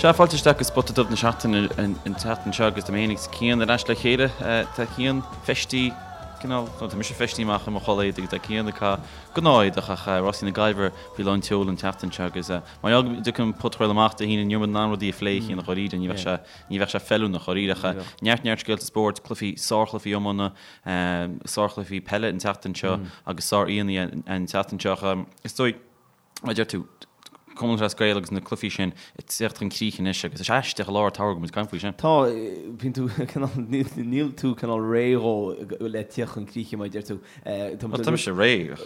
Sea, fáilte isteach go Spota Dubh na Seachtaine an tseachtain seo agus tá mé féin agus Cian ar ais le chéile. Tá Cian feistithe, cineál, nó tá mise feistithe amach i mo chulaith éadaigh agus tá Cian ag caitheamh gnáth-éadach ach Rásaí na Gaillimhe faoi lán tseoil an tseachtain seo agus mar gheall go dtiocfaidh an podchraoladh amach Dé hAoine ní raibh muid in ann rudaí a phlé a Chian dháiríre, ní bheadh sé, ní bheadh sé feiliúnach dháiríre ach neart neart scéalta spóirt, cluichí, sárchluichí iomána, sárchluichí peile an tseachtain seo agus sár-aíonna an tseachtain seo ach is dóigh, Mar a deir tú, Cumann Lúthchleas Gael agus na cluichí sin ag teacht chun críche anois agus is aisteach i lár an tsamhraidh go bhfuil muid ag caint faoi sin. Tá, bíonn tú cineál, níl tú cineál réidh dhó le tíocht chun críche mar a deir tú. Bhuel, tá mise réidh ach.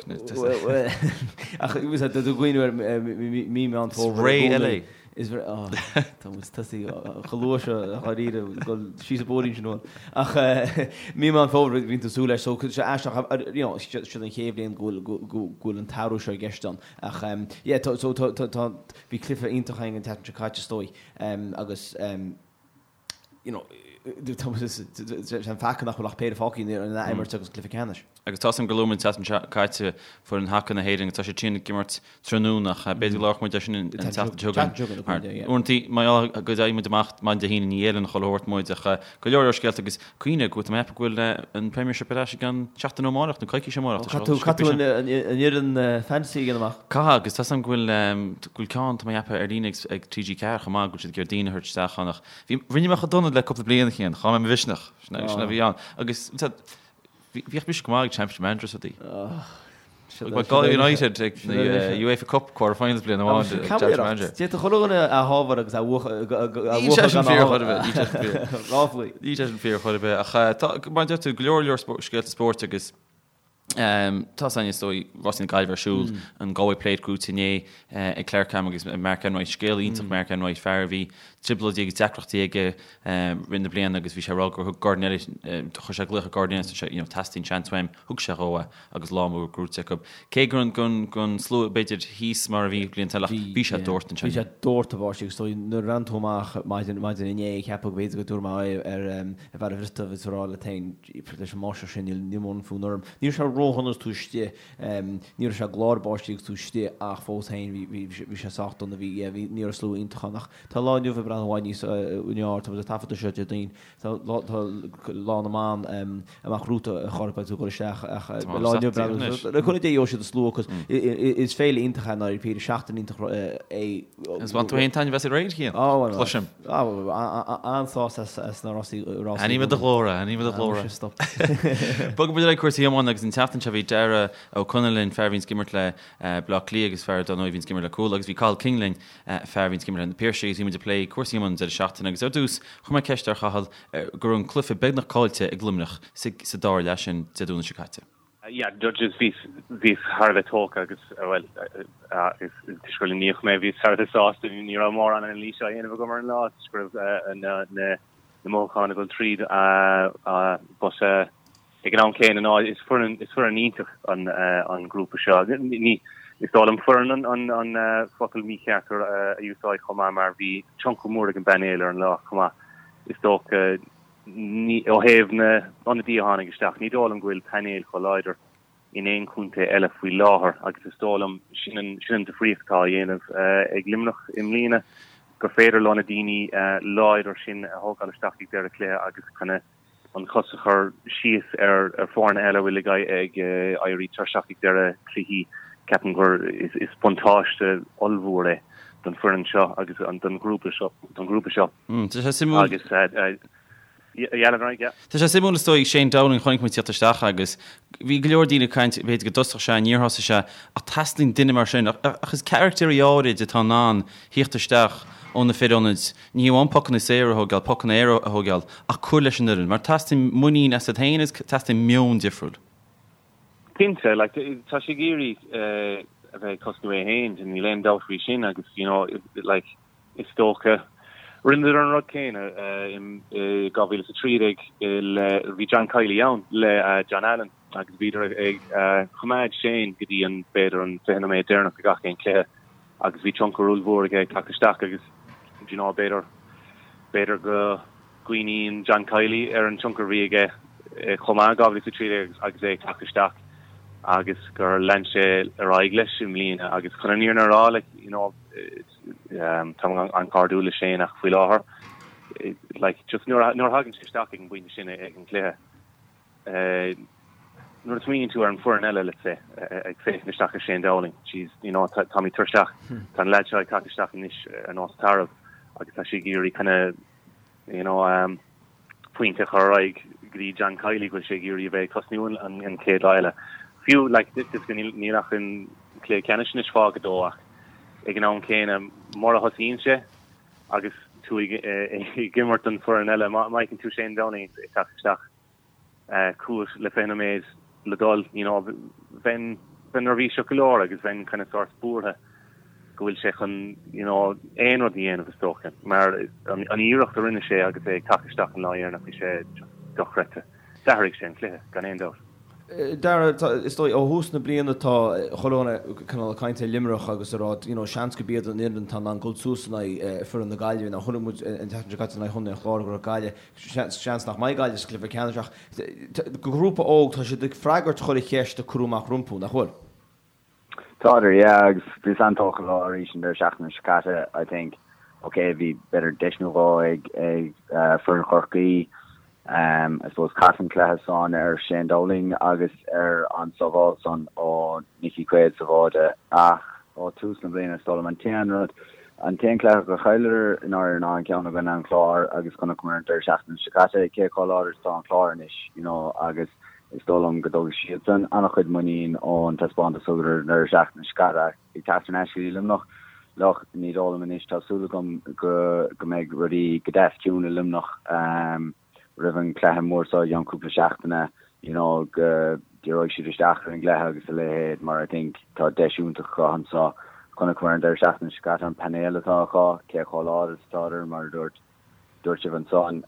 Ach tá tú ag cuimhneamh ar mí Meán Fómhair. Is ré eile é. Is ré, á, tá muid tosaithe chomh luath seo dháiríre, dul síos an bóithrín sin uainn. Ach mí Meán Fómhair bíonn tú ag súil leis, so sé aisteach, you know, siod an chéad bhliain go bhfuil, go bhfuil an t-athrú seo i gceist ann. Ach yeah, tá, so tá, tá, tá, bhí cluiche iontach againn an tseachtain seo caite is dóigh, agus you know, tá muid, sé an faca nach bhfuil ach péire fágtha in ath-imirt agus cluiche ceannais. Agus tá a fhios agam gur luaigh muid an tseachtain seo caite foireann haca na hÉireann agus tá siad sin ag imirt tráthnóna ach b'fhéidir go labharfadh muid air sin an tseachtain seo chugainn. Mar uaireanta mar gheall go dtéann muid amach maidin Dé hAoine ní fheileann chuile shórt muid ach go leor leor scéalta agus cuimhnigh go bhfuil tá mé ag ceapadh go bhfuil an Premiership ar ais i gceann seachtain ó amárach nó coicís ó amárach. Caithfidh tú caithfidh tú an fhoireann fantasy a dhéanamh amach. Caithfidh agus tá a fhios agam go bhfuil go bhfuil ceann tá mé ag ceapadh ar líne ag TG4 chomh maith go bhfuil siad ag iarraidh daoine a thabhairt isteach ann ach bhí rinne mé chomh dona le cúpla bliain a Chian, chaill mé mo mhisneach. Sin a bhí ann agus Bhíodh mise go maith ag Championship Manager is rudaí. Bhí Galway United ag na UEFA Cup quarter finals bliain amháin ag Championship Manager. D'fhéadfadh chuile dhuine a shábháil agus a bhuachan Níl sé sin fíor chor ar bith. Níl sé sin fíor. Ráflaí. Níl sé sin fíor chor ar bith. Ach tá, mar a deir tú, go leor leor scéalta spóirt agus tá a fhios againn is dóigh Rásaí na Gaillimhe ar siúl, an Galway Plate gnóthaithe inné ag Clarcam agus Mark Enright. Scéal iontach Mark Enright, fear a bhí trioblóidí agus deacrachtaí aige rith na bliana agus bhí sé ag rá gur thug Gordon Elliott, chuir sé glaoch ar Gordon Elliott agus sé, you know, teastaíonn seans uaim, thug sé dhó é agus lá mór gnóthaithe acu. Cé go raibh an slua b'fhéidir thíos mar a bhí blianta eile ach bhí sé dórtadh ansin. Bhí sé dórtadh báistí agus is dóigh nuair a bhreathnaigh tú amach maidin maidin inné ag ceapadh go b'fhéidir go dtabharfaidh mé aghaidh ar ar bheár an Bhriotaigh agus a rá leat féin leis an mbáisteach sin níl níl mórán fonn orm. Ní raibh sé ródhona agus tú istigh, ní raibh sé ag glár báistí agus tú istigh ach fós féin bhí bhí bhí sé sách dona bhí yeah bhí ní raibh slua iontach ann ach Tá lá inniu ag breathnú i bhfad níos fearr, tá muid ag taifeadadh seo Déardaoin, tá lá na mban amach romhat a chara beidh tú ag dul isteach ach lá inniu ag breathnú, le cúnamh Dé gheobhaidh siad an slua cos is féile iontach é ndáiríre, seachtain iontach é. Agus bhain tú féin taitneamh as aréir, Cian? Cloisim. An-sásta as na rásaí. Aithním i do ghlór é, aithním i do ghlór é. Stop. Bogfaidh muid ar aghaidh cúrsaí iomána agus an tseachtain seo bhí Darragh Ó Conaill linn, fear a bhíonns ag imirt le Bleá Cliath agus fear dar ndóigh a bhíonns ag imirt le Cuala agus bhí Cathal King linn fear a bhíonns ag imirt le Na Piarsaigh agus bhí muid ag plé cúrsaí iomána an deireadh seachtaine agus ar dtús chuir mé ceist ar Chathal go raibh an cluiche beagnach caillte ag Luimneach sa dara leath sin Dé Domhnaigh seo caite. Yeah, judges, bhíos, bhíos thar a bheith tógtha agus, bhuel, toisc gur Luimníoch mé, bhíos thar a bheith sásta, ní raibh mórán anailíse á dhéanamh agam ar an lá toisc go raibh na, na, na mothúcháin ag dul tríd, but, Ag an am céanna ná is foireann is foireann iontach an an grúpa seo. Ní is dóigh liom foireann an an an focal mícheart a úsáid chomh maith mar bhí tionchar mór ag an bpainéal ar an lá chomh maith. Is dócha ní ó thaobh na n-ionadaí a tháinig isteach ní dóigh liom go bhfuil painéal chomh láidir in aon chontae eile faoi láthair agus is dóigh liom sin an sin an difríocht atá á dhéanamh ag Luimneach i mbliana gur féidir leo na daoine láidir sin a thógáil isteach ag deireadh cluiche agus kind of an chos a chur síos ar foirne eile a bhfuil ag éirí tuirseach ag deireadh cluichí, ceapaim gur is buntáiste ollmhór é don foireann seo agus don ghrúpa seo don ghrúpa seo. Tá sé suimiúil. Agus yeah. Tá sé suimiúil is dóigh Shane Dowling chonaic muid tíocht isteach agus bhí go leor daoine ag caint b'fhéidir go dtosódh sé níor thosaigh sé ach teastaíonn duine mar sin ach is caractéirí áirid atá in ann thíocht isteach ó na fir ionaid Ní hamháin pocanna saora a thógáil, pocanna aeir a thógáil, ach cur leis an fhoireann, mar teastaíonn muinín asat féin agus teastaíonn meon difriúil. Cinnte, like, tá sé ag iarraidh a bheith ag tosnú é féin, níl aon dabht faoi sin agus, you know, like, is dócha, rinneadar an rud céanna i 2013 le, bhí John Kiely ann le John Allen agus bhíodar ag coimeád Shane go dtí an, b'fhéidir an 20 nóiméad deireanach de gach aon chluiche. agus bhí tionchar ollmhór aige ag teacht isteach agus do you know b'fhéidir b'fhéidir go gcuimhníonn John Kiely ar an tionchar a bhí aige chomh maith in 2013 agus é ag teacht isteach. agus gur lean sé ar aghaidh leis i mbliana agus chun an fhírinne a rá like you know táim an-chairdiúil le Shane ach faoi láthair like just nuair a thagann sé isteach ag an bpointe sin ag an gcluiche nuair a smaoiníonn tú ar an foireann eile let's say ag féachaint isteach ar Shane Dowling jeez you know táimid tuirseach tá an lad seo ag teacht isteach anois ar nós tarbh agus tá sé ag iarraidh kind of you know pointe a chur ar aghaidh go dtí John Kiely go bhfuil sé ag iarraidh a bheith ag tosnú an chéad lá eile. Fiú like níl ach an cluiche ceannais anois fágtha dó ach ag an am céanna mura thosaíonn sé agus tú ag imirt don foireann eile má fheiceann tú Shane Dowling ag teacht isteach chugat le 20 nóiméad le dul, you know, bheinn neirbhíseach go leor agus bheinn kind of sórt buartha go bhfuil sé chun, you know, aon rud a dhéanamh is dócha, mar an iarracht a rinne sé agus é ag teacht isteach an lá dheireanach, bhí sé just dochreidte. D'athraigh sé an cluiche, gan aon dabht. Dara, is dóigh, ó thús na bliana tá chuile dhuine cineál ag caint ar Luimneach agus ag rá, you know, seans gurb iad an fhoireann atá in ann dul suas in aghaidh foireann na Gaillimhe. Now chonaic muid an tseachtain seo caite in aghaidh Chontae an Chláir go raibh Gaillimh, seans nach mbeidh Gaillimh sa chluiche ceannais ach grúpa óg, tá siad ag freagairt chuile cheist a cuireadh amach rompu, nach bhfuil? Tádar, yeah, agus bhíos an-tógtha leo arís an deireadh seachtaine seo caite, I think, ok, bhí b'fhéidir deis nó dhó ag ag foireann Chorcaí, I suppose chas an cluiche san ar Shane Dowling agus ar an sábháil san ó Nicky Quaid sa bháide ach ó tús na bliana is dóigh liom an t-aon rud, an t-aon cluiche gur chailleadar i ndáiríre ná an ceann i gcoinne an Chláir agus chonaiceamar an deireadh seachtaine seo caite cé chomh láidir is atá an Clár anois, you know, agus is dóigh liom go dtógfaidh siadsan an-chuid muinín ón taispeántas a thugadar an deireadh seachtaine seo caite ach ag teacht thar n-ais go dtí Luimneach, look, ní dóigh liom anois, tá súil agam go go mbeidh rudaí go deas ciúin i Luimneach roimh an chluiche mór seo i gceann cúpla seachtaine, you know, go díreoidh siad isteach ar an gcluiche agus a leithéid mar I think tá deis iontach acu anseo. Chonaiceamar an deireadh seachtaine seo caite an painéal atá acu, cé chomh láidir is atádar mar a dúirt dúirt sibh ansan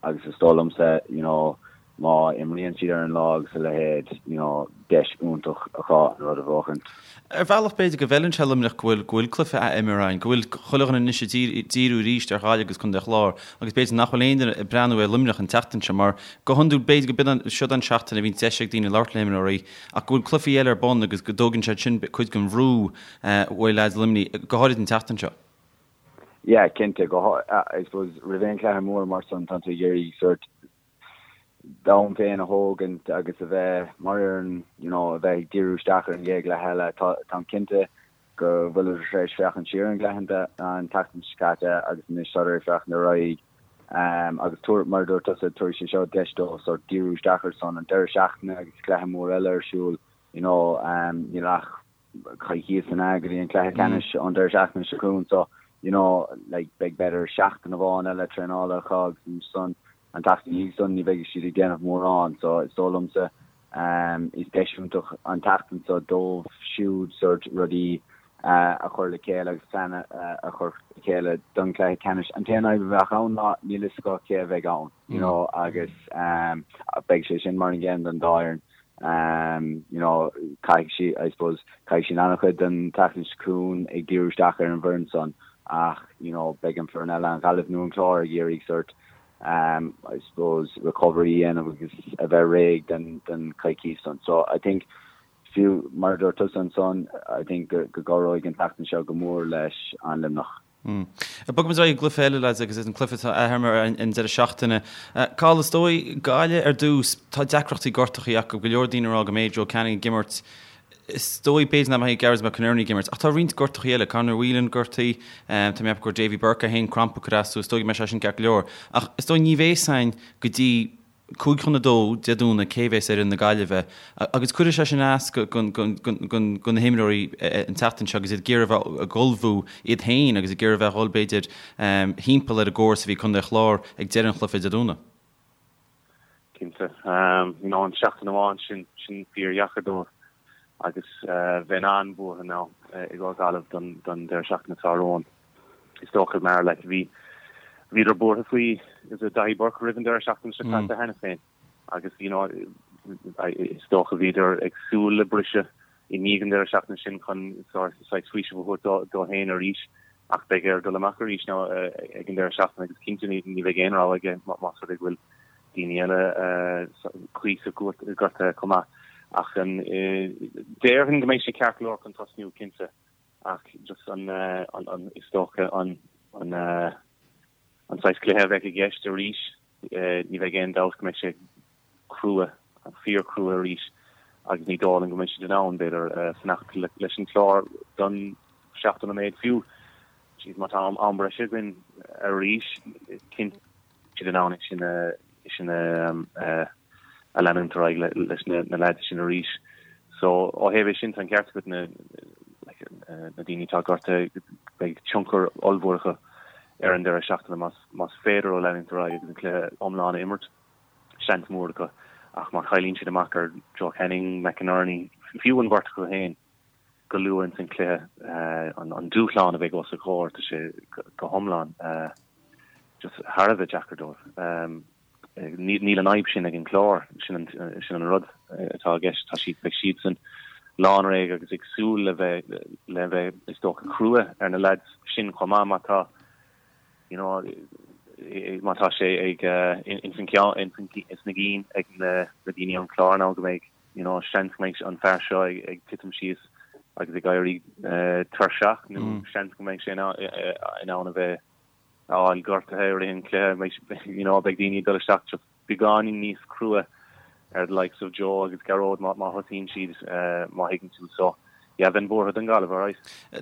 agus is dóigh liomsa you know má imríonn siad ar an lá agus a leithéid you know deis iontach acu an rud a bhuachaint. Ar bhealach b'fhéidir go bhfeileann sé Luimneach go bhfuil go bhfuil cluiche á imirt againn, go bhfuil chuile dhuine anois ag díriú arís ar Ghaillimh agus Contae an Chláir agus b'fhéidir nach bhfuil aon duine ag breathnú ar Luimneach an tseachtain seo mar go hiondúil b'fhéidir go b'in siod an seachtain a bhíonn deis ag daoine labhairt le himreoirí ach go bhfuil cluichí eile ar bun agus go dtógann siad sin cuid den bhrú uaidh leaids Luimnigh, go háirid an tseachtain seo. Yeah, cinnte, go I suppose roimh aon chluiche mór mar san tá tú ag iarraidh sort d'am féin a thógaint agus a bheith mar fhoireann, you know, a bheith ag díriú isteach ar an gcéad chluiche eile. Tá, táim cinnte go bhfuileadar tar éis féachaint siar ar an gcluiche an tseachtain seo caite agus anois tádar ag féachaint ar aghaidh um, agus tabhair, mar a dúirt tusa, tabharfaidh sé seo deis dóibh sort díriú isteach ar san an deireadh seachtaine agus cluiche mór eile ar siúl, you know, um, níl ach coicíos ann go dtí an cluiche ceannais an deireadh seachtaine seo chugainn so you know like beidh b'fhéidir seachtain amháin eile traenála acu agus ansan an tseachtain ina dhiaidh san ní bheidh siad ag déanamh mórán so is dóigh liomsa um is deis iontach an tseachtain seo dóibh siúd sort rudaí a chur le chéile agus plean a chur le chéile don chluiche ceannais. An t-aon fhadhb a bheadh ann ná níl fhios acu cé a bheidh ann you know agus um beidh sé sin mar an gcéanna don dá fhoireann. You know, caithfidh siad, I suppose, caithfidh siad an-chuid den tseachtain seo chugainn ag díriú isteach ar an bhfoireann san ach, you know, beidh an foireann eile, an Ghaillimh nó an Clár, ag iarraidh sort, I suppose, recovery a dhéanamh agus a bheith réidh den, den coicís san. So, I think, fiú mar a dúirt tusa ansan, I think go, go gcabhróidh an tseachtain seo go mór leis an Luimneach. Bogfaidh muid ar aghaidh ag an gcluiche eile, lads, agus is an cluiche atá á imirt an deireadh seachtaine. Cathal, is dóigh, Gaillimh ar dtús, tá deacrachtaí gortachaí acu, go leor daoine ag rá go mbeidh Joe Canning ag imirt. Is dóigh, b'fhéidir nach mbeidh Gearóid McInerney ag imirt, ach tá roinnt gortachaí eile, Conor Whelan gortaithe, tá mé ag ceapadh go raibh Davy Burke é féin crampa ag cur as dó, is dóigh go mbeidh sé sin ceart go leor. Ach is dóigh ní bheidh a fhios againn go dtí 1:55 Dé Domhnaigh cé bhéas ar fhoireann na Gaillimhe agus cuirfidh sé sin as do na himreoirí an tseachtain seo agus iad ag iarraidh a bheith ag ullmhú iad féin agus ag iarraidh a bheith ag dhul b'fhéidir thimpeall ar an gcóras a bhí ag Contae an Chláir ag deireadh an chluiche Dé Domhnaigh. Cinnte. You know an seachtain amháin sin, sin fíordheacair dóibh agus bheinn an-bhuartha now i gcomhair Gaillimh don deireadh seachtaine atá romhainn. Is dócha mar like bhí bhíodar buartha faoi is it Daithí Burke roimh an deireadh seachtaine seo caite cheana féin agus you know is dócha bhíodar ag súil le briseadh i ndiaidh an deireadh seachtaine sin chun saghas faoiseamh a thabhairt dó féin arís ach beidh air dul amach arís now ag an deireadh seachtaine agus cinnte ní bheidh aon rogha aige más rud é go bhfuil daoine eile cuíosach gortaithe chomh maith. Ach an, déarfainn go mbeidh sé ceart go leor chun tosnú, cinnte, ach just an, an, is dócha an, an, an saghas cluiche a bheidh i gceist arís, ní bheidh aon dabht go mbeidh sé crua, fíor-chrua arís agus ní dóigh liom go mbeidh siad in ann, b'fhéidir, fanacht leis an Chlár don 70 nóiméad fiú. Jeez, má tá am breise againn arís, cinnte siad in ann é sin a, sin a, a leanúint ar aghaidh leis na leaids sin arís. So, ó thaobh é sin, tá an ceart agat na, like, na daoine atá gortaithe, beidh tionchar ollmhór acu ar an deireadh seachtaine más, más féidir leo leanúint ar aghaidh agus an cluiche iomlán a imirt. Seans mór acu. Ach má chailleann siad amach ar Joe Canning, McInerney, fiú an bheirt acu féin, go luath ins an chluiche, an dúshlán a bheidh os a gcomhair, tá sé go hiomlán just thar a bheith deacair dóibh. Níl an fhadhb sin ag an Chlár, sin an rud atá i gceist, tá siad, beidh siadsan lánréidh agus ag súil le bheith, le bheith is dócha crua ar na leaids sin chomh maith má tá, you know, má tá sé ag ins an ceann, ins na gcinn ag na daoine ón Chlár nó go mbeidh you know, seans go mbeidh an fear seo ag, ag titim síos agus ag éirí uh, tuirseach nó mm. seans go mbeidh sé in, in ann a bheith a fháil gortaithe i rith an chluiche, you know, beidh daoine ag dul isteach just beagáinín níos crua ar the likes of Joe agus Gearóid má, má thosaíonn siad uh, má thuigeann tú so yeah, bheinn buartha don Ghaillimh, alright.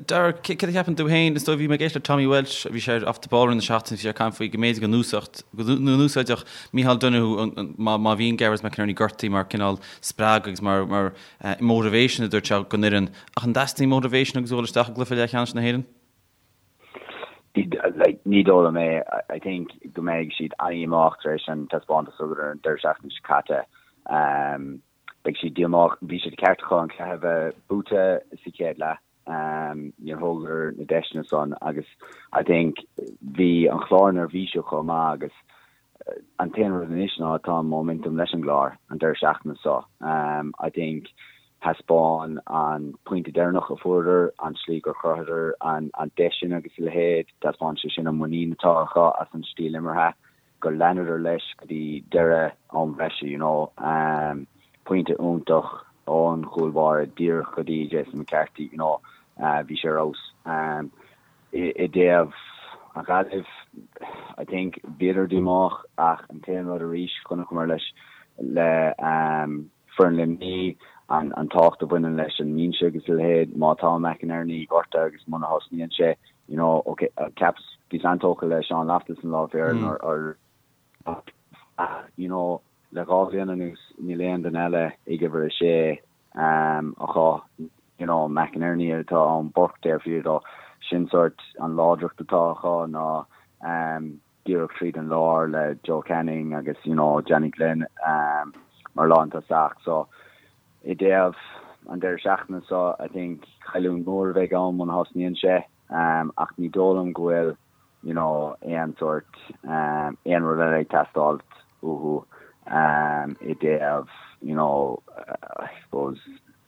Dara, céard a cheapann tú féin? Is dóigh, bhí mé ag éisteacht le Tommy Walsh, bhí sé ar Off the Ball roimh na seachtaine, bhí sé ag caint faoi go mb'fhéidir go n-úsáidfeadh, go n-úsáidfeadh Micheál Donoghue má, má bhíonn Gearóid McInerney gortaithe mar cineál spreagadh agus mar, mar motivation a dúirt sé don fhoireann. Ach an dteastaíonn motivation agus dul isteach i gcluiche leathcheannais na hÉireann? Like, ní dóigh liom é. I think go mbeidh siad an-dhíomách tar éis an taispeántas a thugadar an deireadh seachtaine seo caite. Beidh siad díomách. Bhí sé de cheart acu an cluiche a bheith buaite sa chéad leath. Níor thógadar na deiseanna san agus I think bhí an Chlár neirbhíseach chomh maith agus an t-aon rud anois ná tá an momentum leis an gClár an deireadh seachtaine seo. I think thaispeáin an pointe deireanach a fuaireadar, an tslí gur chruthaíodar an deis sin agus a leithéid, taispeáin sé sin an muinín atá acu as an stíl imeartha. gur leanadar leis go dtí deireadh am bhreise, you know. Pointe iontach ón chúl báire díreach go dtí Jason McCarthy, you know, bhí sé ar fheabhas. I dtaobh an Ghaillimh, I think bhíodar díomách ach an t-aon rud arís, chonaiceamar leis le foireann Luimnigh, an an tábhacht a bhaineann leis an mbinse agus a leithéid, má tá McInerney gortaithe agus muna thosnaíonn sé, you know, ok, cheapas, bhíos an-tógtha le Sean Loftus an lá féir ar, ach, you know, le dhá bhliain anuas níl aon duine eile ag uimhir a sé acu, you know, McInerney atá ann, Burke taobh thiar dó, sin sórt an láidreacht atá acu ná díreach tríd an lár le Joe Canning agus, you know, Johnny Glynn mar lántosach. So, i dtaobh an deireadh seachtaine seo, I think cailliúint mhór a bheidh ann muna thosnaíonn sé ach ní dóigh liom go bhfuil, you know, aon sórt, aon rud eile ag teastáil uathu i dtaobh, you know, I suppose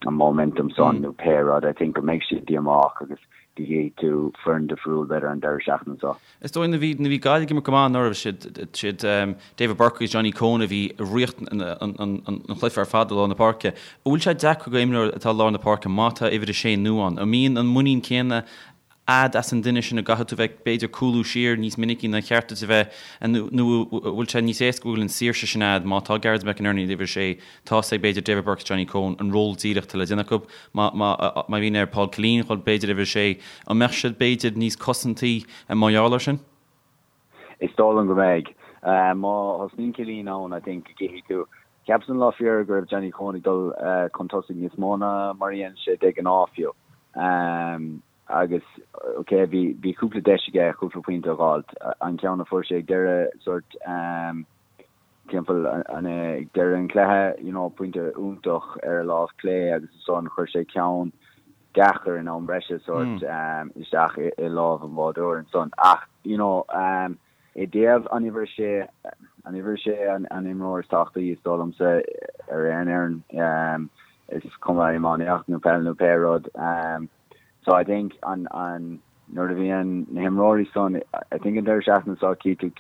an momentum san nó pé rud. I think go mbeidh siad díomách agus go gcífidh tú foireann difriúil b'fhéidir an deireadh seachtaine seo. Is dóigh nuair a bhí nuair a bhí Gaillimh ag imirt go maith anuraidh siad siad David Burke agus Johnny Coen a bhí i riocht an an an chluiche ar fad i lár na páirce. An bhfuil sé deacair go imreoir atá i lár na páirce má tá uimhir a sé nua ann? An mbíonn an muinín céanna a'd as an duine sin an gcaithfidh tú bheith b'fhéidir cúlú siar níos minicí ná cheart duit a bheith nó an bhfuil sé níos éasca go bhfuil an saoirse sin a'd má tá Gearóid McInerney ag uimhir a sé tá's ag b'fhéidir David Burke is Johnny Coen an ról díreach atá le déanamh acu má má má bhíonn ar Paul Killeen dhul b'fhéidir uimhir a sé an mbeadh siad b'fhéidir níos cosantaí mar gheall air sin? Is dóigh liom go mbeidh. Má thosnaíonn Killeen ann I think go gcífidh tú Cheapas an lá fíor go raibh Johnny Coen ag dul chun tosaigh níos mó ná mar a dhéanann sé de ghnáth fiú. Agus ok bhí bhí cúpla deis aige cúpla pointe a dh'fháilt. An ceann a fuair sé ag deireadh sórt timpeall an ag deireadh an chluiche you know pointe iontach ar a lámh clé agus ansan chuir sé ceann deacair in am breise sórt isteach i lámh an bháireoir ansan. Ach you know I dtaobh an uimhir a sé, an uimhir a sé an imreoir is tábhachtaí is dóigh liomsa ar aon fhoireann, is cuma iománaíocht nó peil nó pé rud. So I think an, an, nuair a bhíonn na himreoirí san, I think an deireadh seachtaine seo tchí tú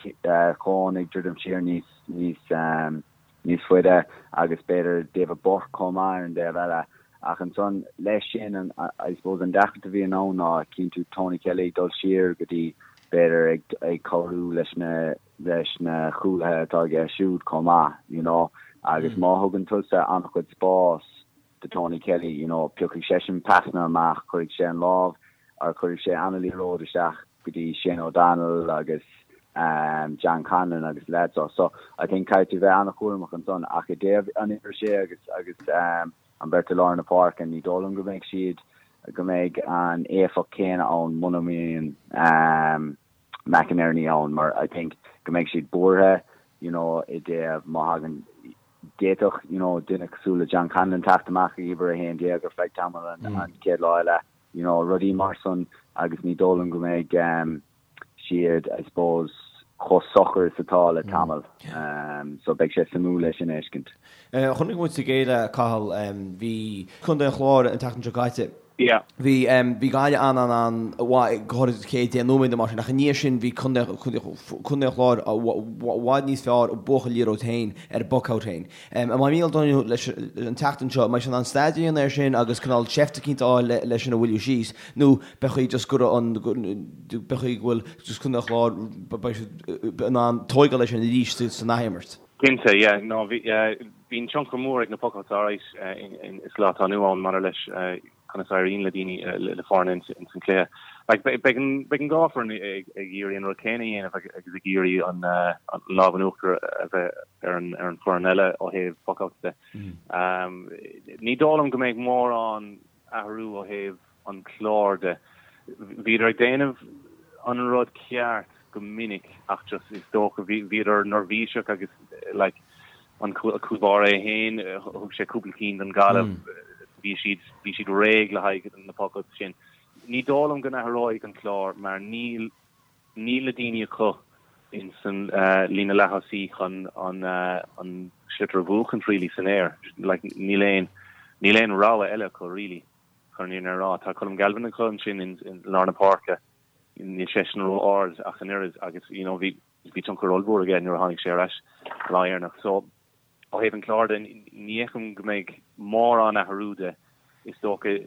Coen ag druidim siar níos, níos. níos faide agus b'fhéidir David Burke chomh maith ar an dtaobh eile. Ach ansan leis sin, an, I suppose an deacracht a bhíonn ann ná cíonn tú Tony Kelly ag dul siar go dtí b'fhéidir ag, ag cabhrú leis na, leis na cúlaithe atá aige siúd chomh maith, you know. Agus má thugann tusa an-chuid spás do Tony Kelly, you know, piocfaidh seisean pasanna amach, cuirfidh sé an lámh or cuirfidh sé an-liathróid isteach go dtí Shane O'Donnell agus John Conlon agus lads so. So I think caithfidh tú bheith an-chúramach ansan ach i dtaobh an uimhir sé agus agus an bheirt i lár na páirce ní dóigh liom go mbeidh siad go mbeidh an éifeacht céanna ann muna mbíonn McInerney ann mar I think go mbeidh siad buartha you know i dtaobh má thagann d'fhéadfadh you know duine cosúil le John Conlon teacht amach ag uimhir 11 ar feadh tamall an chéad lá eile you know rudaí mar san agus ní dóigh liom go mbeidh siad I suppose chomh socair is atá le tamall so beidh sé suimiúil é sin a fheiscint. Chonaic muid sa gcéile, Cathal, bhí Contae an Chláir an tseachtain seo caite. Yeah. Bhí bhí Gaillimh an an an mhaith go háirid an chéad 10 nóiméad nó mar sin ach i ndiaidh sin bhí Contae Contae an Chláir i bhfad níos fearr ag buachan liathróid féin ar an bpuc-out féin. An mbeidh Mícheál Donoghue leis an tseachtain seo, an mbeidh sé in ann staidéar a dhéanamh air sin agus cineál seift eicínt a fháil leis sin a mhoilliú síos nó pé chaoi just go raibh an pé chaoi go bhfuil just Contae an Chláir beidh siad in ann tóigeáil leis sin arís san athimirt. Cinnte, yeah. No, bhí, bíonn tionchar mór ag na puck-outs alright sa lá atá inniu ann maidir leis conas a éiríonn le daoine, le foirne ins an cluiche. Like, beidh an, beidh an dhá foireann ag, ag iarraidh an rud céanna a dhéanamh agus ag iarraidh an, an lámh in uachtar a bheith ar an, ar an foireann eile ó thaobh puck-outs de. Ní dóigh liom go mbeidh mórán athrú ó thaobh an chlár de. Bhíodar ag déanamh an rud ceart go minic ach just is dócha bhíodar neirbhíseach agus like an cúl báire é féin thug sé cúpla cinn don Ghaillimh bhí siad bhí siad réidh le haghaidh na puck-outs sin. Ní dóigh liom go n-athróidh an clár mar níl níl na daoine acu in san líne leath-thosaí chun an an sliotar a bhuachaint really san aer. Like níl aon níl aon rogha eile acu really. Chun an fhírinne a rá, tá Colm Galvin acu ansin i lár na páirce, níl seisean ró-ard ach an oiread agus you know bhí bhí tionchar ollmhór aige nuair a tháinig sé ar ais an lá dheireanach. So ó thaobh an chláir de, ní fheicim go mbeidh mórán athrú de. Is dócha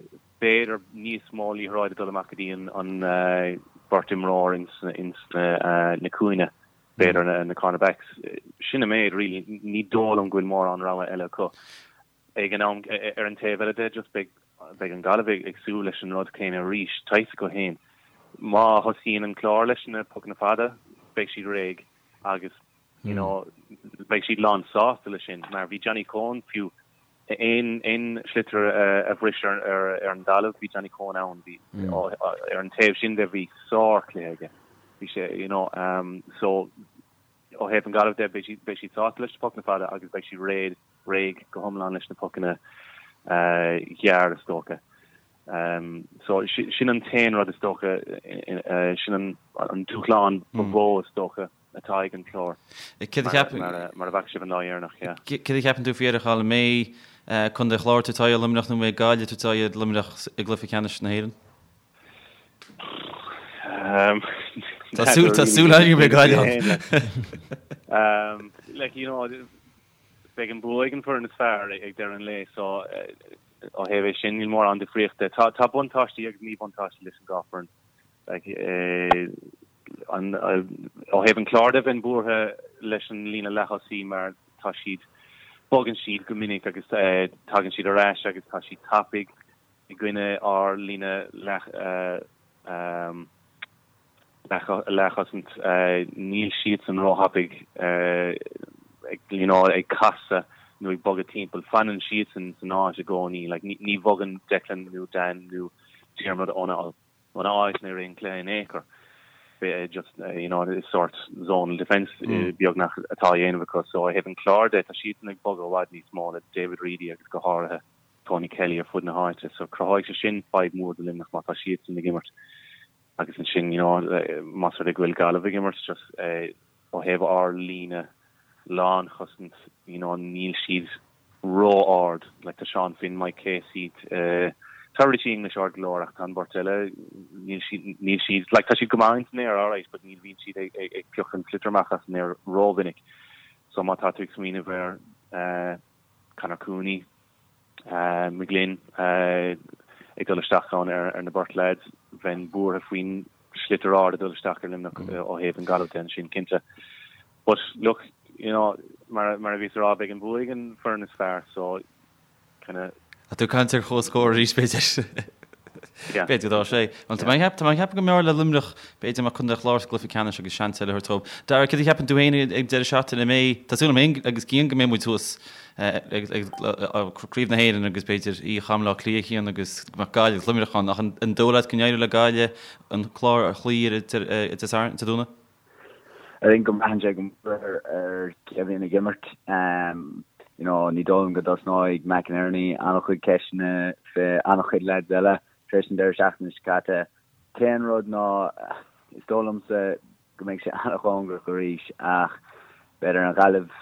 b'fhéidir níos mó liathróid ag dul amach go dtí an an bheirt imreoir ins ins na na cúinne, b'fhéidir na na cornerbacks. Sin an méid really, ní dóigh liom go bhfuil mórán rogha eile acu. Ag an am, ar an taobh eile de, just beidh, beidh an Ghaillimh ag súil leis an rud céanna arís, tá a fhios acu féin. Má thosaíonn an Clár leis na pocanna fada, beidh siad réidh agus, you know, beidh siad lán sásta leis sin, mar bhí Johnny Coen fiú, aon, aon sliotar a bhris ar, ar, ar an dtalamh, bhí Johnny Coen ann, bhí, ar an taobh sin de, bhí sárchluiche aige. Bhí sé, you know, so, Ó thaobh an Ghaillimh de, beidh siad, beidh siad sásta leis na pocanna fada agus beidh siad réidh, réidh go hiomlán leis na pocanna gearr is dócha. So sin an t-aon rud is dócha, sin an, an dúshlán ba mhó is dócha atá ag an Clár mar, mar a bhfaca sibh an lá dheireanach, yeah. Céard a cheapann tú faoi a Chathail, an mbeidh Contae an Chláir ag tabhairt aghaidh ar Luimneach nó an mbeidh Gaillimh ag tabhairt aghaidh ar Luimneach i gcluiche ceannais na hÉireann? Tá súil tá súil againn go mbeidh Gaillimh ann. Like you know beidh an bua ag an foireann is fearr ag deireadh an lae so ó thaobh é sin níl mórán difríochta. Tá tá buntáistí agus míbhuntáistí leis an dhá foireann. Like an ó thaobh an Chláir de bheinn buartha leis an líne leath-thosaí mar tá siad bogann siad go minic agus tagann siad ar ais agus tá siad tapaidh. I gcoinne ár líne leathchosaint, níl siadsan róthapaidh ag you know ag casadh nó ag bogadh timpeall. Fanann siadsan san áit i gcónaí. Like ní bhogann Declan nó Dan nó Diarmuid óna óna áit i rith an chluiche in aon chor. Just you know is sort zonal defence beagnach atá á dhéanamh acu. So ó thaobh an Chláir de, tá siadsan ag bogadh i bhfad níos mó le David Reidy agus go háirithe Tony Kelly ar fud na háite so cruthóidh sé sin fadhb mhór do Luimneach má tá siadsan ag imirt agus ansin you know más rud é go bhfuil Gaillimh ag imirt just ó thaobh ár líne lánchosaint you know níl siad ró-ard like tá Seán Finn, Mike Casey tá Richie English ard go leor ach tá an bheirt eile níl siad níl siad like tá siad go maith in san aer alright but ní bhíonn siad ag ag piocadh an sliotar amach as an aer rómhinic so má tá tú ag smaoineamh ar. Conor Cooney, McGlynn ag dul isteach ann ar na beirt leaids. Bheinn buartha faoin sliotar ard ag dul isteach ar Luimneach ó thaobh an Gaillimh de ansin, cinnte. But look, you know, mar mar a bhíos a rá, beidh an bua ag an foireann is fearr, so kind of. Tá tú ag caint ar chomhscór arís, b'fhéidir. Yeah. B'fhéidir go dá sé. Bhuel, tá mé ag tá mé ag ceapadh go mb'fhearr le Luimneach, b'fhéidir mbeadh Contae an Chláir sa gcluiche ceannais agus seans eile a thabhairt dóibh. Dara, céard a cheapann tú féin ag deireadh seachtaine? An mbeidh, tá súil agam féin agus Cian go mbeidh muid thuas ag ag Craobh na hÉireann agus b'fhéidir oíche i mBaile Átha Cliath, Cian, agus go mbeadh Gaillimh agus Luimneach ann. Ach an dóigh leat go n-éireoidh le Gaillimh an Clár a chloí ar Dé Sathairn, Dé Domhnaigh? I think go mbraitheann sé go mór ar cé a bhíonn ag imirt. You know, ní dóigh liom go dtosnóidh McInerney an-chuid ceisteanna fé an-chuid lads eile tar éis an deireadh seachtaine seo caite. T-aon rud ná, is dóigh liomsa go mbeidh sé an-chóngarach arís ach b'fhéidir an Ghaillimh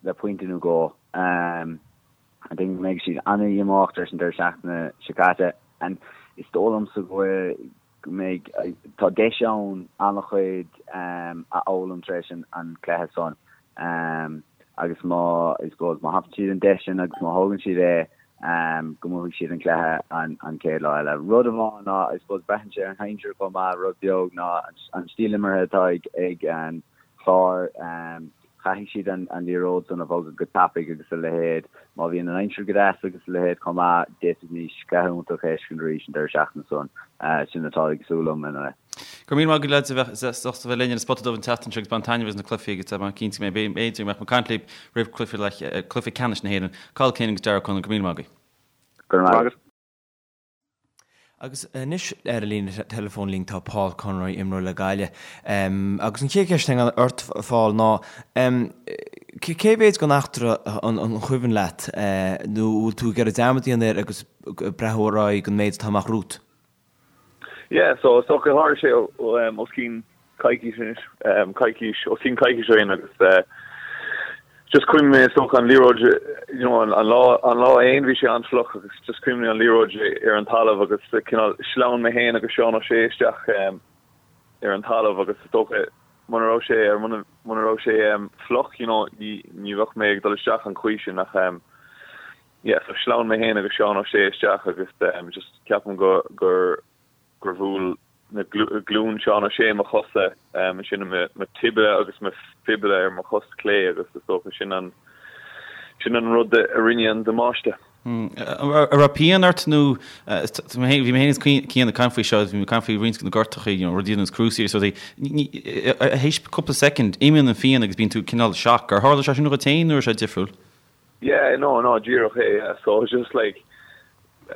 le pointe nó dhó. I think go mbeidh siad an-dhíomách tar éis an deireadh seachtaine seo caite and is dóigh liomsa go bhfuil go mbeidh, tá deis ann an-chuid a fhoghlaim tar éis an cluiche san agus má, I suppose, má thapaíonn siad an deis sin agus má thógann siad é, go mbuafaidh siad an cluiche an chéad lá eile. Rud amháin ná, I suppose, braitheann sé ar an aimsir chomh maith, rud beag ná an stíl imeartha atá ag an Chlár. Caithfidh siad an liathróid san a bhogadh go tapaidh agus a leithéid. Má bhíonn an aimsir go deas agus a leithéid chomh maith, d'fhéadfaimis cluiche iontach a fheiscint arís an deireadh seachtaine san. Sin atá ag súil liom ina leith. Go raibh míle maith agat lads a bheith sásta bheith linn ar an Spota Dubh an tseachtain seo agus bain taitneamh as na cluichí agus tá mé cinnte go mbeidh b'fhéidir go mbeadh mé ag caint libh roimh cluiche ceannais na hÉireann. Cathal Quinn agus Darragh Conlon, go raibh míle maith agaibh. Go raibh maith agat. Agus anois ar an líne teileafóin linn tá Paul Conroy, imreoir le Gaillimh. Agus an chéad cheist atá ort, Paul, ná cé mhéid den eachtra an cuimhin leat nó bhfuil tú ag iarraidh dearmad a dhéanamh air agus breathnú ar aghaidh don méid atá amach romhat? Yeah, so is dócha tharla sé os cionn coicís anois, coicís, os cionn coicís ó shin agus just cuimhnigh mé is dócha an liathróid, you know, an lá, an lá fhéin bhí sé an-fhliuch agus just cuimhnigh an liathróid ar an talamh agus cineál shleamhain mé fhéin agus Seán O'Shea isteach ar an talamh agus is dócha muna raibh sé ar muna muna raibh sé fliuch, you know, ní ní bheadh mé ag dul isteach an chaoi sin ach yeah, so shleamhain mé fhéin agus Seán O'Shea isteach agus just ceapaim go gur gur bhuail na glúin Seán O'Shea mo chosa, ansin mo tibia agus mo fibula ar mo chos clé agus is dócha sin an sin an rud a rinne an damáiste. An raibh pian ort nó bhí mé féin is Cian ag caint faoi seo, bhí mé ag caint faoi roinnt de na gortachaí, you know, rudaí ar nós cruciate agus rudaí. Théis cúpla soicind, imíonn an phian agus bíonn tú cineál shock. Ar tharla sé sin dhuit féin nó raibh sé difriúil? Yeah, no, no, díreach é, yeah. So it was just like,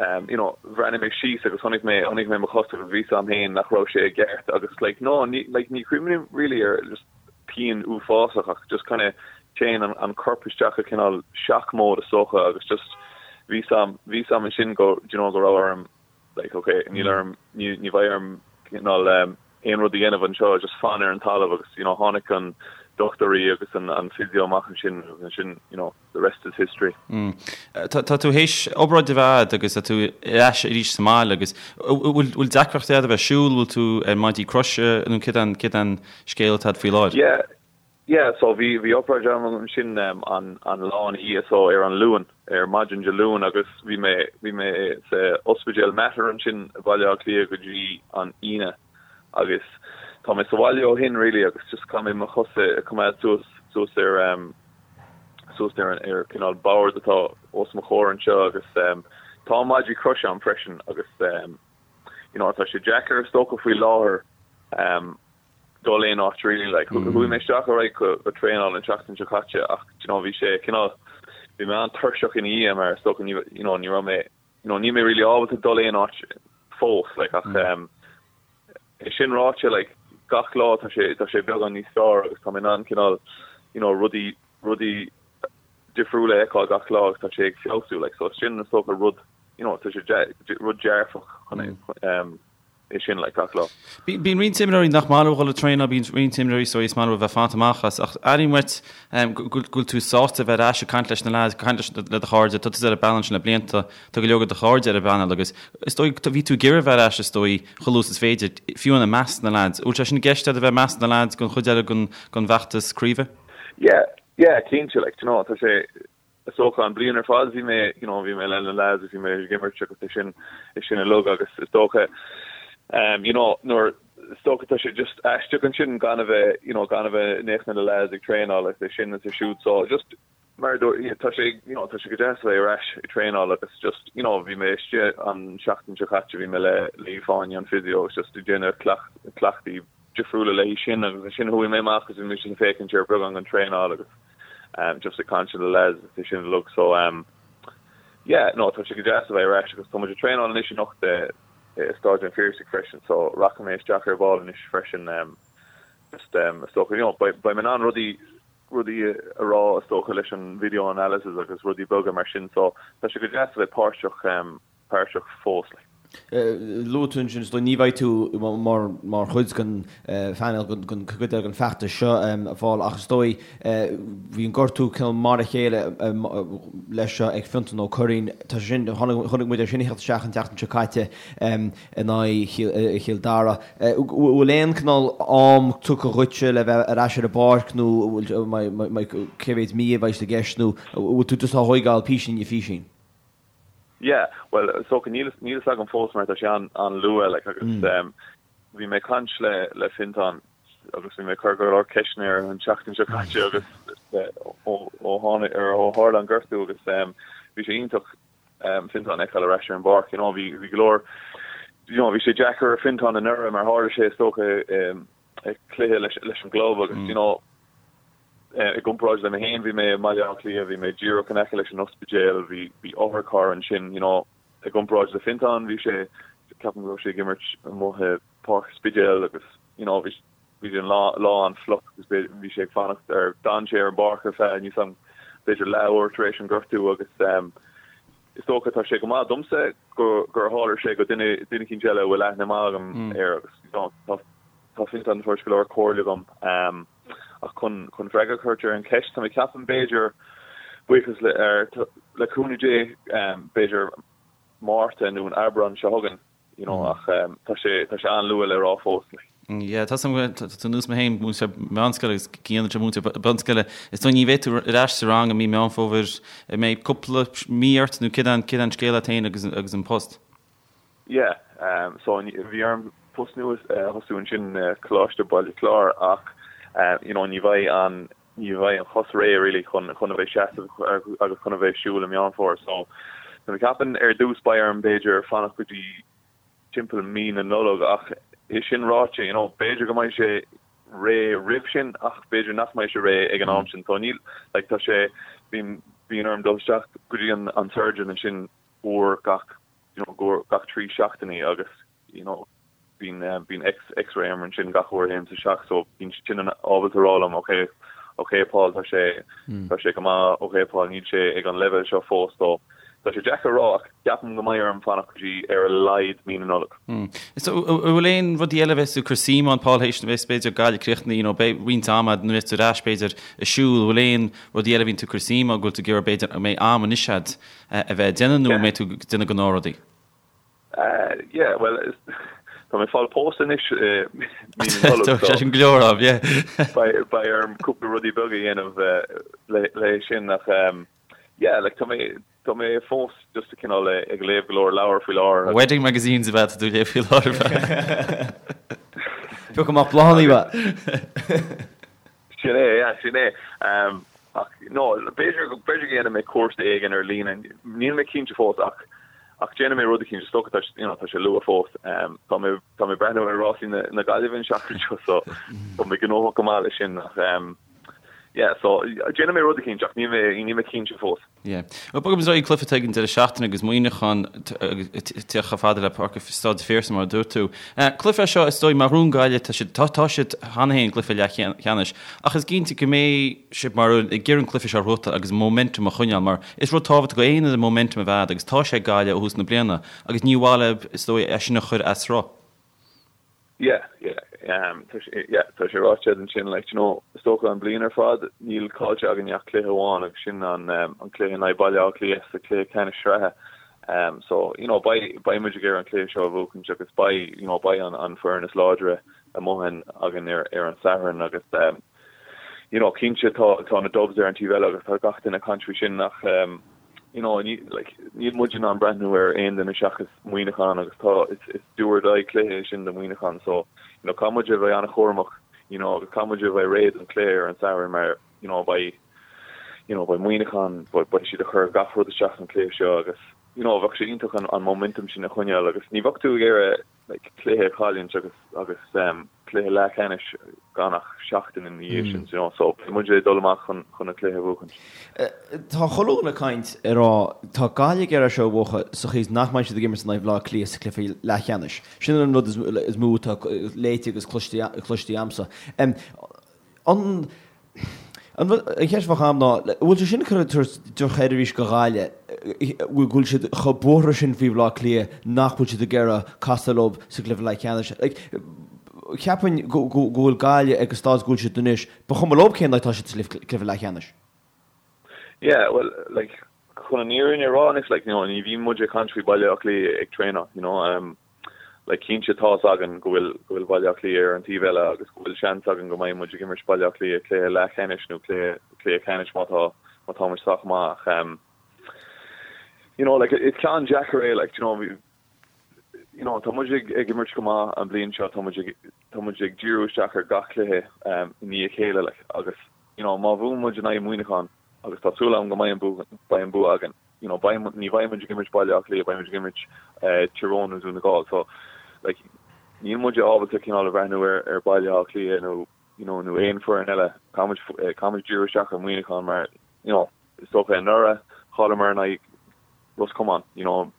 um, you know, bhreathnaigh mé síos agus chonaic mé, chonaic mé mo chos agus bhí 'fhios a'm féin nach raibh sé i gceart agus like, no, ní, like, ní chuimhním really ar just pian uafásach ach just kind of téann an, an corp isteach i cineál shock mode is dócha agus just bhí 'fhios a'm, bhí 'fhios a'm ansin go, do you know, go raibh orm like ok níl orm ní ní bheidh orm cineál um, aon rud a dhéanamh anseo just fan ar an talamh agus you know tháinig an dochtúirí agus an an physio amach ansin agus ansin you know the rest is history. Mm. Tá tá tú théis obráid a bheith a'd agus tá tú ar ais arís sa mbaile agus bhfuil bhfuil deacrachtaí a'd a bheith ag siúl, bhfuil tú ar maidí croise nó céard an céard an scéal atá a'd faoi láthair? Yeah Yeah, so bhí, bhí obráid agam ansin an, an lá ina dhiaidh, so ar an Luan, ar maidin Dé Luain agus bhí mé, bhí mé sa ospidéal Mater ansin i Baile Átha Cliath go dtí an Aoine agus tá mé sa bhaile ó shin really agus just caithfidh mé mo chos a choimeád suas, suas ar em, suas ar an, ar cineál bord atá os mo chomhair anseo agus em, tá maidí croise a'm freisin agus em, you know tá sé deacair is dócha faoi láthair em, dul aon áit really like chuaigh mé isteach ar aghaidh go go traenáil an tseachtain seo caite ach do you know bhí sé cineál bhí mé an-tuirseach ina dhiaidh mar is dócha ní you know ní raibh mé you know níl mé really ábalta dul aon áit fós like ach um, é sin ráite like gach lá tá sé tá sé beagán níos fearr agus tá mé in ann cineál you know rudaí rudaí difriúla a fheiceáil gach lá agus tá sé ag feabhsú like so sin is dócha rud you know tá sé rud dearfach chun um, é sin like gach lá. Bíonn roinnt imreoirí nach maith leo dhul ag traenáil, bíonn roinnt imreoirí so is maith leo a bheith fanta amach as, ach airím uait go bhfuil tú sásta a bheith ar ais ag caint leis na lads, ag caint leis le do chairde, tá tusa ar an bpainéal sin le blianta, tá go leor de do chairde ar an bpainéal agus is dóigh, bhí tú ag iarraidh a bheith ar ais is dóigh chomh luath is is féidir, fiú i measc na lads. Bhfuil sé sin i gceist agat a bheith i measc na lads don chuid eile den bhfeachtas craoibhe? Yeah. Yeah, cinnte, like, do you know, tá sé, is dócha an bliain ar fad bhí mé, you know, bhí mé le na lads agus bhí mé ag imirt agus é sin, é sin uilig agus is dócha, um, you know, nuair, is dócha tá sé just aisteach ansin gan a bheith, you know, gan a bheith in éineacht na lads ag traenáil agus é sin is é siúd so just mar a dúirt, yeah, tá sé, you know, tá sé go deas a bheith ar ais ag traenáil agus just, you know, bhí mé istigh an seachtain seo caite, bhí mé le, le Fáinne an physio agus just ag déanamh cleacht, cleachtaí difriúla léi sin agus ansin chuaigh mé amach agus bhí mise ag féachaint ar beagán den traenáil agus um, just ag caint le lads agus é sin uilig so um, yeah, no, tá sé go deas a bheith ar ais agus tá muid ag traenáil anois anocht i, i Stáid an Phiarsaigh freisin so rachaidh mé isteach ar ball anois freisin um, just um, is dócha, you know, beidh, beidh mé in ann rudaí rudaí a rá is dócha leis an video analysis agus rudaí beaga mar sin so tá sé go deas a bheith páirteach um, páirteach fós. Like. Luaigh tú ansin, is dóigh, ní bheidh tú mar mar chuid den phainéal den chuid eile den feachtas seo a Phóil ach is dóigh bhí an gortú cineál mar a chéile leis seo ag Fionntán Ó Curraoin. Tá sé sin, chonaic muid é sin ag theacht isteach an tseachtain seo caite in aghaidh Chill Dara. Bhfuil aon cineál am tugtha dhuitse le bheith ar ais ar an bpáirc nó cé mhéad mí a bheidh i gceist nó bhfuil tú just á thóigeáil písín i phísín? Yeah, bhuel, is dócha, níl níl fhios agam fós mar tá sé an-luath, like, agus mm. bhí mé ag caint le le Fiontán agus bhí mé ag cur go leor ceisteanna air an tseachtain seo caite agus ó ó tháinig ar ó tharla an gortú agus bhí sé iontach Fiontán a fheiceáil ar ais ar an bpáirc, you know, bhí bhí go leor you know, bhí sé deacair ar Fiontán anuraidh mar tharla sé is dócha i cluiche leis leis an gclub agus mm. you know, I gcomparáid le mé féin, bhí mé i mBaile Átha Cliath, bhí mé díreach in aice leis an ospidéal, bhí bhí otharcharr ansin, you know. I gcomparáid le Fiontán, bhí sé, ceapaim go raibh sé ag imirt amuigh i Páirc an Spidéil agus, you know, bhí bhí an lá lá an-fhliuch agus bhí sé ag fanacht ar, d'fhan sé ar an bpáirc ar feadh, níl 's agam, b'fhéidir leathuair tar éis an gortú agus ehm is dócha tá sé go maith domsa go gur tharla sé go duine duine eicínt eile a bhfuil aithne maith agam air agus, you know, tá tá Fiontán ag tabhairt go leor comhairle dom. Ehm. Ach chun chun freagra a thabhairt ar an cheist, tá mé ag ceapadh b'fhéidir, buíochas le ar le cúnamh Dé, b'fhéidir Márta nó an Aibreán seo chugainn, you know, ach tá sé tá sé an-luath le rá fós. Yeah, tá tá tú ar nós mé féin, múinteoir meánscoile agus Cian anseo múinteoir bunscoile. Is dóigh ní bheidh tú ar ais sa rang i mí Meán Fómhair, an mbeidh cúpla mí ort nó céard é céard é an scéal leat féin agus agus an post? Yeah, so bhí orm post nua a thosú ansin i Coláiste Baile Chláir ach you know ní bheidh an, ní bheidh an chos réidh really chun chun a bheith seasamh agus chun a bheith siúl i Meán Fómhair so tá mé ag ceapadh ar dtús beidh orm b'fhéidir fanacht go dtí timpeall mí na Nollag ach é sin ráite you know b'fhéidir go mbeidh sé réidh roimh sin ach b'fhéidir nach mbeidh sé réidh ag an am sin so níl like tá sé bíonn bíonn orm dul isteach go dtí an an surgeon ansin uair gach you know uair gach 3 seachtainí agus you know bíonn bíonn X X-ray orm ansin gach uair a théim isteach so bíonn siad sin ábalta a rá liom ok ok Paul tá sé tá sé go maith ok Paul níl sé ag an leibhéal seo fós so tá sé deacair a rá ach ceapaim go mbeidh orm fanacht go dtí ar a laghad mí na Nollag. So an bhfuil aon rudaí eile a bheas tú ag cur suim ann Paul théis bheas b'fhéidir Gaillimh críochnaithe you know beidh roinnt ama nuair a bheas tú ar ais b'fhéidir ag siúl an bhfuil aon rudaí eile a bhíonn tú ag cur suim ann go bhfuil tú ag iarraidh b'fhéidir an mbeidh am anois agat a bheith ag déanamh nó an mbeidh tú ag déanamh gnáthrudaí? Yeah, bhuel, tá mé ag fáil pósta anois i mí na Nollag, so. Sé sin go leor am, yeah. Beidh orm cúpla rudaí beaga a dhéanamh le sin ach yeah, like tá mé tá mé fós just cineál ag léamh go leor leabhar faoi láthair. Wedding magazines ab ea atá tú ag léamh faoi láthair. Piocadh amach bláthanna, ab ea? Sin é, yeah, sin é. Ach, no, b'fhéidir, b'fhéidir go ndéanfaidh mé cúrsa éigin ar líne, níl mé cinnte fós ach, ach déanfaidh mé rud eicínt, is dócha, tá, you know, tá sé luath fós. Tá mé, tá mé ag breathnú ar rásaí na, na Gaillimhe an seachtain seo so tá mé gnóthach go maith leis sin ach, yeah, so déanfaidh mé rud eicínt ach níl mé, níl mé cinnte fós. Yeah. Bhuel, bogaimis ar aghaidh cluiche atá ag an deireadh seachtaine agus Muineachán ag teacht chomh fada le Páirc Staid an Phiarsaigh mar a dúirt tú. Cluiche é seo is dóigh mar Dhún Gaillimh tá siad tá tá siad cheana féin i gcluiche leathcheannais ach is cinnte go mbeidh sibh mar ag iarraidh an cluiche seo a bhuachtáil agus momentum a choinneáil mar is rud tábhachtach do aon fhoireann momentum a bheith agat agus tá sé ag Gaillimh ó thús na bliana agus ní mhaith leo is dóigh é sin a chur as sruth. Yeah, yeah, um, tá sé, yeah, tá sé ráite ansin, like, you know, is dócha an bliain ar fad, níl caillte againn ach cluiche amháin agus sin an, um, an cluiche in aghaidh Baile Átha Cliath sa cluiche ceannais sraithe. Um, so, you know, beidh, beidh muid ag iarraidh an cluiche seo a bhuachaint agus beidh, you know, beidh an, an foireann is láidre amuigh againn ar, ar an Satharn agus, um, you know, cinnte tá tá na Dubs ar an taobh eile agus tá gach duine ag caint faoi sin ach um, you know, ní, like, níl muid in ann breathnú ar aon duine seachas Muineachán agus tá is, is do or die cluiche é sin do Mhuineachán so you know, caithfidh muid a bheith an-chúramach you know, agus caithfidh muid a bheith réidh don cluiche ar an Satharn mar you know, beidh you know, beidh Muineachán beidh, beidh siad ag cur gach rud isteach san cluiche seo agus you know, bheadh sé iontach an, an momentum sin a choinneáil agus ní bheadh tú ag iarraidh like, cluiche a chailliúint agus agus um, cluiche leathcheannais gan ach seachtain ina dhiaidh sin, you know, so beidh muid ag dul amach chun chun an cluiche a bhuachaint. Tá chuile dhuine ag caint ag rá tá Gaillimh ag iarraidh seo a bhuachan sa chaoi is nach mbeidh siad ag imirt in aghaidh Bhaile Átha Cliath sa chluiche leathcheannais. Sin an rud is mó atá léite agus cloiste cloiste agamsa. An An cheist a bheadh agam ná, an bhfuil sé sin ag cur drochsheirbhís do Ghaillimh, go bhfuil siad chomh buartha sin faoi Bhaile Átha Cliath nach bhfuil siad ag iarraidh casadh leo sa gcluiche leathcheannais? Like, cheapfainn go bhfuil Gaillimh ag an staid go bhfuil siad anois, ba chuma leo cén áit atá siad sa gcluiche leathcheannais. Yeah, well, like, chun an fhírinne a rá anois, like, you know, ní bhíonn muid ag caint faoi Baile Átha Cliath ag traenáil, you know, um, like cinnte tá's againn go bhfuil go bhfuil Baile Átha Cliath ar an taobh eile agus go bhfuil seans againn go mbeidh muid ag imirt Baile Átha Cliath cluiche leathcheannais nó cluiche cluiche ceannais má tá má tá muid sách maith ach um, you know like is ceann deacair é like you know you know tá muid ag ag imirt go maith an bliain seo tá muid ag tá muid ag díriú isteach ar gach cluiche um, i ndiaidh a chéile like agus you know má bhuann muid in aghaidh Muineachán agus tá súil agam go mbeidh an bua beidh an bua againn you know, beidh, ní bheidh muid ag imirt Baile Átha Cliath, beidh muid ag imirt Tyrone nó Dún na Gall. So, like, níl muid ábalta cineál a bhreathnú ar, ar Baile Átha Cliath nó, you know, nó aon foireann eile. Caithfidh muid, caithfidh muid díriú isteach ar Mhuineachán mar, you know, is dócha anuraidh, chailleamar in aghaidh Ros Comáin, you know,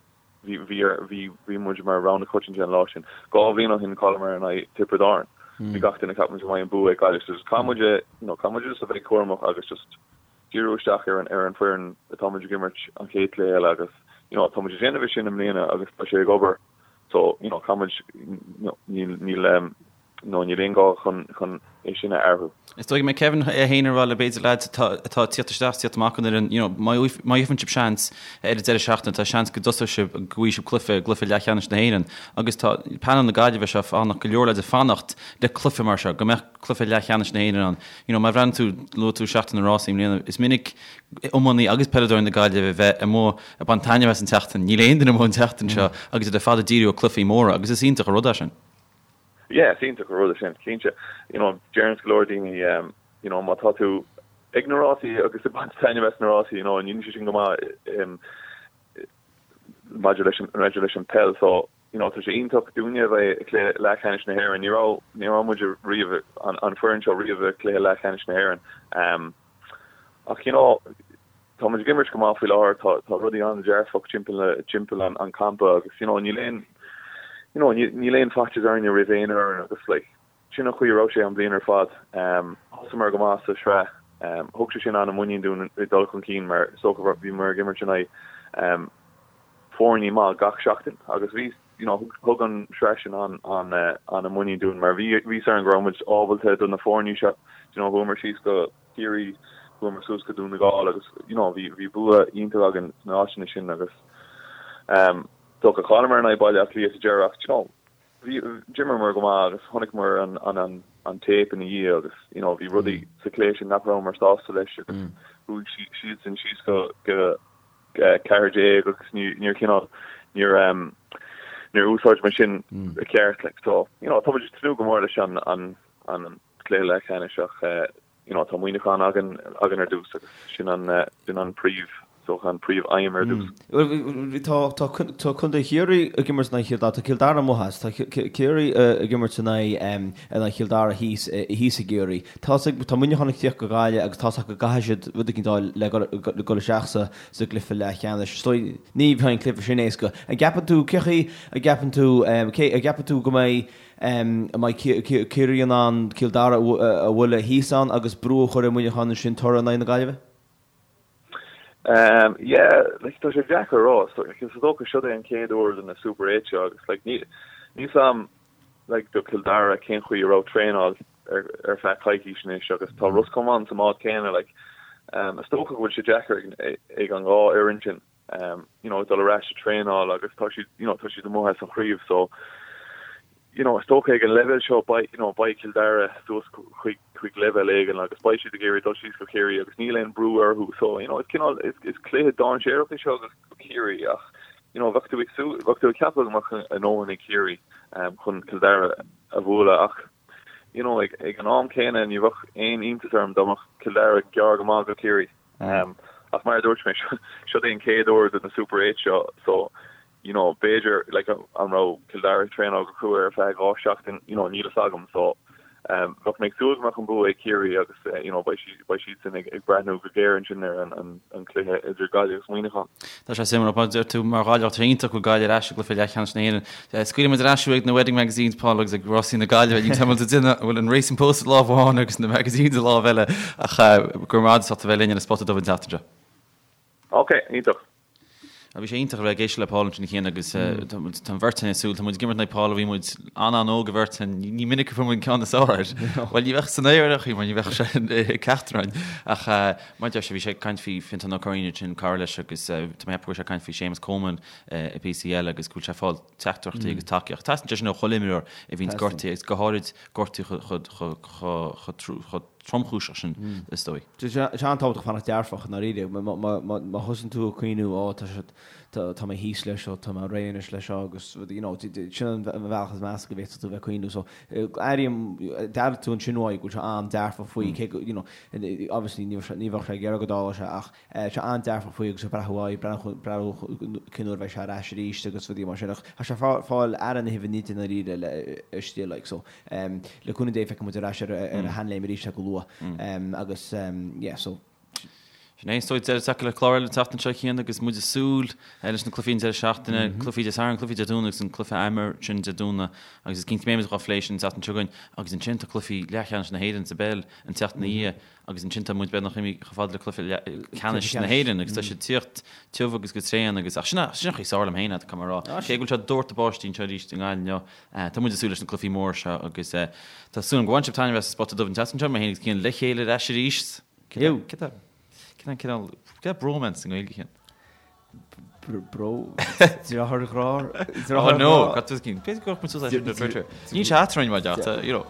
bhí, bhí, bhí, bhí muid mar rogha na coitianta an lá sin. 2 bhliain ó shin chailleamar in aghaidh Tiobraid Árann. Bhí gach duine ag ceapadh go mbeidh an bua ag Gaillimh. So just caithfidh muid, you know, caithfidh muid just a bheith cúramach agus just, díriú isteach ar an ar an foireann atá muid ag imirt an chéad cluiche eile agus you know tá muid ag déanamh é sin i mbliana agus tá sé ag obair so you know caithfidh muid you know níl níl um, you know níl aon gá chun chun é sin a athrú. Is dóigh go mbeidh Kevin é féin ag rá le b'fhéidir lads atá atá ag tíocht isteach tíocht amach an fhoireann you know má má gheibheann sibh seans ar an deireadh seachtaine tá seans go dtosóidh sibh go bhfaighidh sibh cluiche gcluiche leathcheannais na hÉireann agus tá panel na Gaillimhe seo fanacht go leor lads ag fanacht le cluiche mar seo go mbeadh cluiche leathcheannais na hÉireann ann. You know, má bhreathnaíonn tú, luaigh tú Seachtain na Rásaí i mbliana, is minic iománaí agus peileadóirí na Gaillimhe a bheith amuigh ag baint taitneamh as an tseachtain. Níl aon duine amuigh an tseachtain seo agus iad ar fad ag díriú ar cluichí móra agus is iontach an rud é sin. Yeah, is iontach an rud é sin, cinnte. You know, deireann go leor daoine, um, you know, má tá tú ag na rásaí agus ag baint taitneamh as na rásaí, you know, níl sé sin go maith um, maidir leis an, maidir leis an peil, so you know, tá sé iontach dúinne a bheith i gcluiche leathcheannais na hÉireann. Ní raibh, ní raibh muid riamh, an, an foireann seo riamh i gcluiche leathcheannais na hÉireann. Um, ach, you know, tá muid ag imirt go maith faoi láthair, tá, tá rudaí an-dearfach timpeall, timpeall an, an campa agus, you know, níl aon, you know, níl, níl aon faitíos orainne roimh aon fhoireann agus, like, sin an chaoi a raibh sé an bhliain ar fad. Um, thosaíomar go maith sa sraith. Um, thug sé sin an-muinín dúinn ag dul chun cinn mar is dócha bhíomar ag imirt in aghaidh um, foirne maith gach seachtain agus bhí you know thug an sraith sin an an an muinín dúinn mar bhí bhí a fhios againn go raibh muid ábalta do na foirne seo you know chuamar síos go Ciarraí chuamar suas go Dún na Gall agus you know bhí bhí bua iontach againn sna áiteanna sin agus um dócha chailleamar in aghaidh Baile Átha Cliath sa deireadh ach you know bhí d'imríomar go maith agus chonaiceamar an an an an tape ina dhiaidh agus you know bhí rudaí sa chluiche sin nach rabhamar sásta leis agus chuaigh siadsan síos go go 14 agus níor cineál níor níor úsáid muid sin i gceart like so you know tá muid ag tnúth go mór leis an an an cluiche leathcheannais ach you know tá Muineachán againn againn ar dtús agus sin an sin an príomh so an príomh aidhm ar dtús. Tá tá tá Contae Chiarraí ag imirt in aghaidh Chill Dara tá Cill Dara amuigh as tá Ciarraí ag imirt in aghaidh in aghaidh Chill Dara thíos thíos i gCiarraí. Tá tá Muineachán ag tíocht go Gaillimh agus tá's acu go gcaithfidh siad rud éicint a fháil le dhul isteach sa sa gcluiche leathcheannais. Is dóigh ní bheidh an cluiche sin éasca. An gceapann tú, cé chaoi a gceapann tú, cé a gceapann tú go mbeidh an mbeidh Ciarraí in ann Cill Dara a bhualadh thíos ann agus brú a chur ar Mhuineachán ansin toradh in aghaidh na Gaillimhe? Yeah, like tá sé deacair a rá. So, like, is dócha seo é an chéad uair do na Super 8 seo agus like níl a fhios agam like do Cill Dara cén chaoi a raibh traenáil ar ar feadh coicís anois agus tá Ros Comáin sa mbád céanna like um, is dócha go bhfuil sé deacair ag, ag an dhá fhoireann sin um, you know, dul ar ais ag traenáil agus tá siad you know, tá siad amuigh as an chraobh so. You know, is dócha ag an leibhéal seo beidh, you know, beidh Cill Dara suas chuig, chuig leibhéal éigin agus beidh siad ag iarraidh dul síos go Ciarraí agus níl aon brú orthu. So, you know, is cineál, is, is cluiche dainséarach é seo do Chiarraí ach, you know, bheadh tú ag súil, bheadh tú ag ceapadh go mbeadh a ndóthain ag Ciarraí um, chun Cill Dara a bhualadh ach, you know, ag, ag an am céanna ní bheadh aon iontas orm dá mbeadh Cill Dara gearr go maith go Ciarraí. Um, ach mar a dúirt mé, seo é an chéad uair do na Super 8 seo, so, you know, b'fhéidir, like, an raibh Cill Dara ag traenáil go crua ar feadh 2 seachtain, you know, níl fhios agam, so, um, bheadh mé ag súil go mbeadh an bua ag Ciarraí agus, eh, you know, beidh siad, beidh siadsan ag, ag breathnú go géar ansin ar an, an, an cluiche idir Gaillimh agus Muineachán. Tá sé suimiúil, mar a deir tú, mar Ghaillimheach, tá sé iontach go bhfuil Gaillimh ar ais i gcluiche leathcheannais na hÉireann. Eh, scaoilfidh muid ar ais thú ag na Wedding Magazines, Paul, agus ag Rásaí na Gaillimhe, níl tamall de duine a bhfuil an Racing Post i lámh amháin agus na magazines i lámh eile, ach, eh, go raibh maith agat as ucht a bheith linn ar an Spota Dubh an tseachtain seo. Ok, iontach. Bhí sé iontach a bheith ag éisteacht le Paul ansin a Chian agus tá an bheirt againn ag súil, tá muid ag imirt in aghaidh Paul ó bhí muid an-an-óg an bheirt againn, ní minic a fuair muid an ceann is fearr air. Bhuel ní bheadh san aer ar chaoi mar ní bheadh sé ag ceacht orainn. Ach mar a deir sé, bhí sé ag caint faoi Fionntán Ó Curraoin ansin, cara leis agus tá mé ag ceapadh go raibh sé ag caint faoi Séamus Coleman i bpíosaí eile agus go bhfuil sé ag fáil teachtaireachtaí agus tacaíocht. Teastaíonn sé sin ó chuile imreoir a bhíonns gortaithe agus go háirid gortú chomh tromchúiseach sin, is dóigh. Tá sé an-tábhachtach fanacht dearfach, i ndáiríre. Má thosaíonn tú ag cuimhniú, ó, tá sé, tá mé thíos leis seo, tá mé réidh anois leis seo agus, you know, sin an bealach is measa go bhféadfadh tú a bheith ag cuimhniú. So, airím, d'airigh tú ansin uaidh go bhfuil sé an-dearfach faoi, cé go, you know, obviously ní bheadh sé ag iarraidh go dtarlódh sé ach sé an-dearfach faoi agus ag breathnú aghaidh, breathnú cén uair a bheidh sé ar ais arís agus rudaí mar sin. Ach tá sé ag fáil aire na huibhe nite i ndáiríre istigh like so le cúnamh Dé feicfidh muid ar ais ar a sheanléim arís é go luath agus yeah so. Sin é, is dóigh, deireadh tagtha le clár eile an tseachtain seo a Chian agus muid ag súil leis na cluichí an deireadh seachtaine, cluichí Dé Sathairn, cluichí Dé Domhnaigh agus an cluiche Emer sin Dé Domhnaigh agus is cinnte go mbeidh muid dhá phlé sin an tseachtain seo chugainn agus ansin tá cluichí leathcheannais na hÉireann sa bpeil an tseachtain ina dhiaidh. Agus ansin tá muid beagnach imithe chomh fada le cluiche ceannais na hÉireann agus tá sé ag tíocht tiubh agus go tréan agus ach sin sin an chaoi is fearr liom féin é, caithfidh mé a rá. Cé go bhfuil sé ag doirteadh báistí anseo arís i nGaillimh inniu, tá muid ag súil leis na cluichí móra seo agus tá súil agam go bhain sibh taitneamh as an Spota Dubh an tseachtain seo, mé féin agus Cian le chéile ar ais arís. Cé tá cé tá cineál cé tá bromance i nGaeilge Cian? Bro, deartháir ghrá. Oh no, got this cinn. B'fhéidir go muid suas leis ar Twitter. Níl sé eadrainn mar dearta, you know.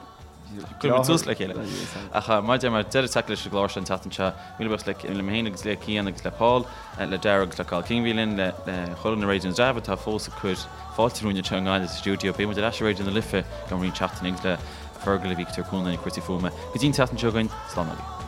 Cuir muid suas le chéile. Ach mar a deir mé deireadh tagtha leis an gclár seo an tseachtain seo. Míle buíochas le le mé féin agus le Cian agus le Paul, le Dara agus le Cathal King a bhí linn, le le chuile dhuine i Raidió na dTreabh atá fós ag cur fáilte romhainn anseo i nGaillimh sa stiúideo. Beidh muid ar ais i Raidió na Life i gceann roinnt seachtainí agus le Fergal a bhí ag tabhairt cúnamh dúinn i gcúrsaí fuaime. Go dtí an tseachtain seo chugainn, slán agaibh.